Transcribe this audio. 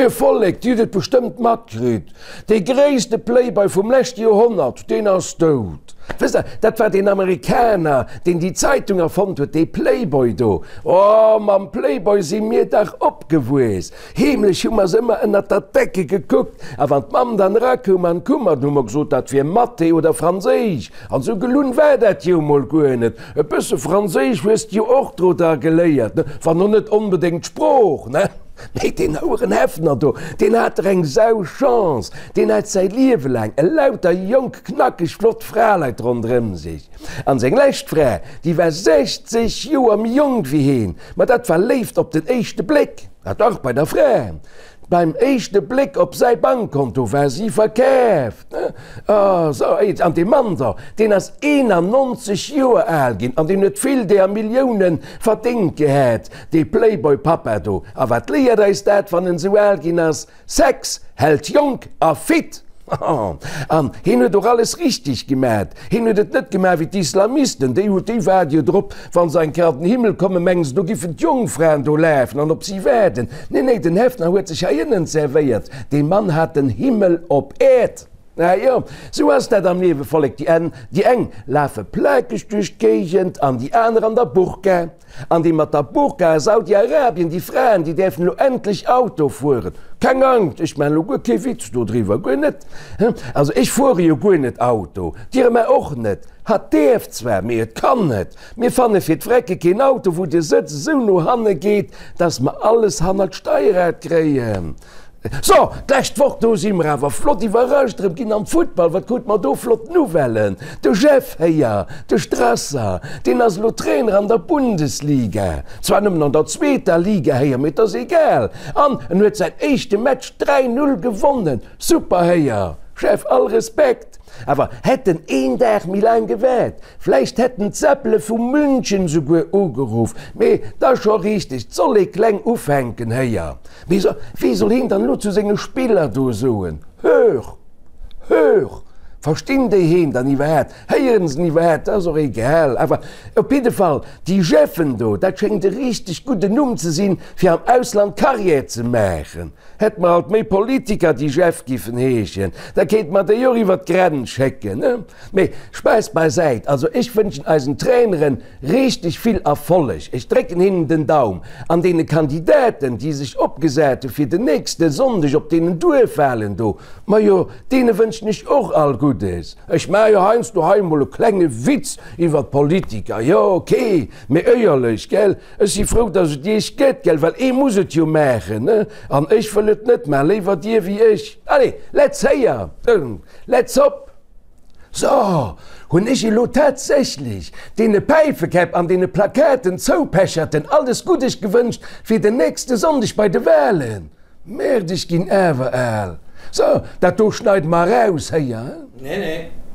Moie Vollek, Dir hutt et bestëmmt matkritt, dee gréisste Playboy vum leschte Joerhonnert, deen ass dout. Wësst Der, dat war deen Amerikaner, deen déi Zeitung erfonnt huet, dee Playboy do. Oh, mam Playboy si mir dach opgewuess. Heemlech hu mer se ëmmer ënnert der Decke gekuckt, a wann d'Mamm dann erakoum an d'Kummer, dann hu mer gesot, dat wier Mathé oder Franséisch. An sou gelunn war dat jo mol guer net. E bësse Franséisch hues de jo och dro da geléiert, ne? Wann och net onbedéngt d'Sprooch, ne? Mee deen houeren Häfner do, deen hat der eng Sau-Chance! Deen hat säi Liewe laang elauter jonk, knackeg, flott Fraleit ronderëm sech. An seng lescht Fra, déi war 60 Joer méi jonk wéi heen. Ma dat war Léift op den éischte Bléck. Ah dach, bei der Fra. Beim éischte Bléck op säi Bankkonto war si verkaaft. Ah, sou, an dee Mann do, deen ass 91 Joer al ginn an deen huet vill deer Milliounen verdéngt gehat, dee Playboy-Pappa do. A wat léiert eis dat, wann en sou al ginn ass? Sex hält jonk a fit! An hien huet och alles richteg gemat. Hien huet et net gemaach wéi d'Islamisten, déi hu, déi waarde jo drop, wa se eng Kéier an den Himmel kommen, mengen se, do giffen d'Jongfraen do lafen an op si waarden. Nee, nee, den Häfner huet sech hei ënnen zerwéiert. Dee Mann hat den Himmel op Äerd. Ah jo, sou ass dat am Liewe, Vollek, déi en, déi eng lafe plakeg duerch d'Géigend an déi aner an der Burka. An déi mat der Burka a Saudi-Arabien, déi Fraen, déi däerfen elo endlech Auto fueren. Keng Angscht, ech maachen elo guer kee Witz dodriwwer, guer net. Also ech fuere jo guer net Auto, d'Irma och net. Hatt däerf zwar, mee et kann net. Mir fanne fir d'Vrecke keen Auto, wou de Sëtz esou no hanne geet, dass mer alles hannert d'Steierrad kréien. So, d'lescht Woch, do si mer awer flott iwwerrascht erëm ginn am Futtball. Wat krute mer do flott Nouvellen? De Jeff héier, de Strasser, deen ass elo Trainer an der Bundesliga. Zwar nëmmen an der zweeter Liga héier, mee et ass egal. An en huet säin éischte Match 3, 0 gewonnen. Super héier, Jeff, all Respekt. Awer hätt en een Dag méi laang gewaart, vläicht hätten d'Seppele vu München souguer ugeruff. Mee 't ass scho richteg, 't soll ee kleng ufänken héier. Mee so, wéi soll heen dann elo zu senge Spiller do soen, Hör! Hör! Verstinn déi heen dann iwwerhaapt? Héieren se en iwwerhaapt? Dat ass och egal. Awer op jidde Fall, déi Jeffen do, dat schéngt e richteg gudden Numm ze sinn, fir am Ausland Carrière ze maachen. Hätt mer alt méi Politiker, déi Jeff giffen heeschen, da kéinte mer déi och iwwer d'Grenz schécken, ne? Mee Spaass beisäit, also ech wënschen eisen Traineren richteg vill Erfolleg, ech drécken hinnen den Daum, an deene Kandidaten, déi sech opgesat hu fir den nächste Sonndeg op deenen Duerfwahlen do, majo, deene wënschen ech och all Guddes. Ech maache jo heiansdo hei emol e klenge Witz iwwer d'Politiker, jo ok, mee éierlech, gell? Ech si frou, dass et Iech gëtt, gell, well ee muss et jo maachen, ne? An ech wëll et net maachen, léiwer Dir wéi ech. Allez, let's héier, let's hop! So, hunn ech elo tatsächlech deene Päifekäpp an deene Plakaten Zoupecherten alles Guddes gewënscht fir den nächste Sonndeg bei de Wahlen? Merde, ech ginn awer al. So, dat do schneide mer eraus, héier, he? Nee, nee.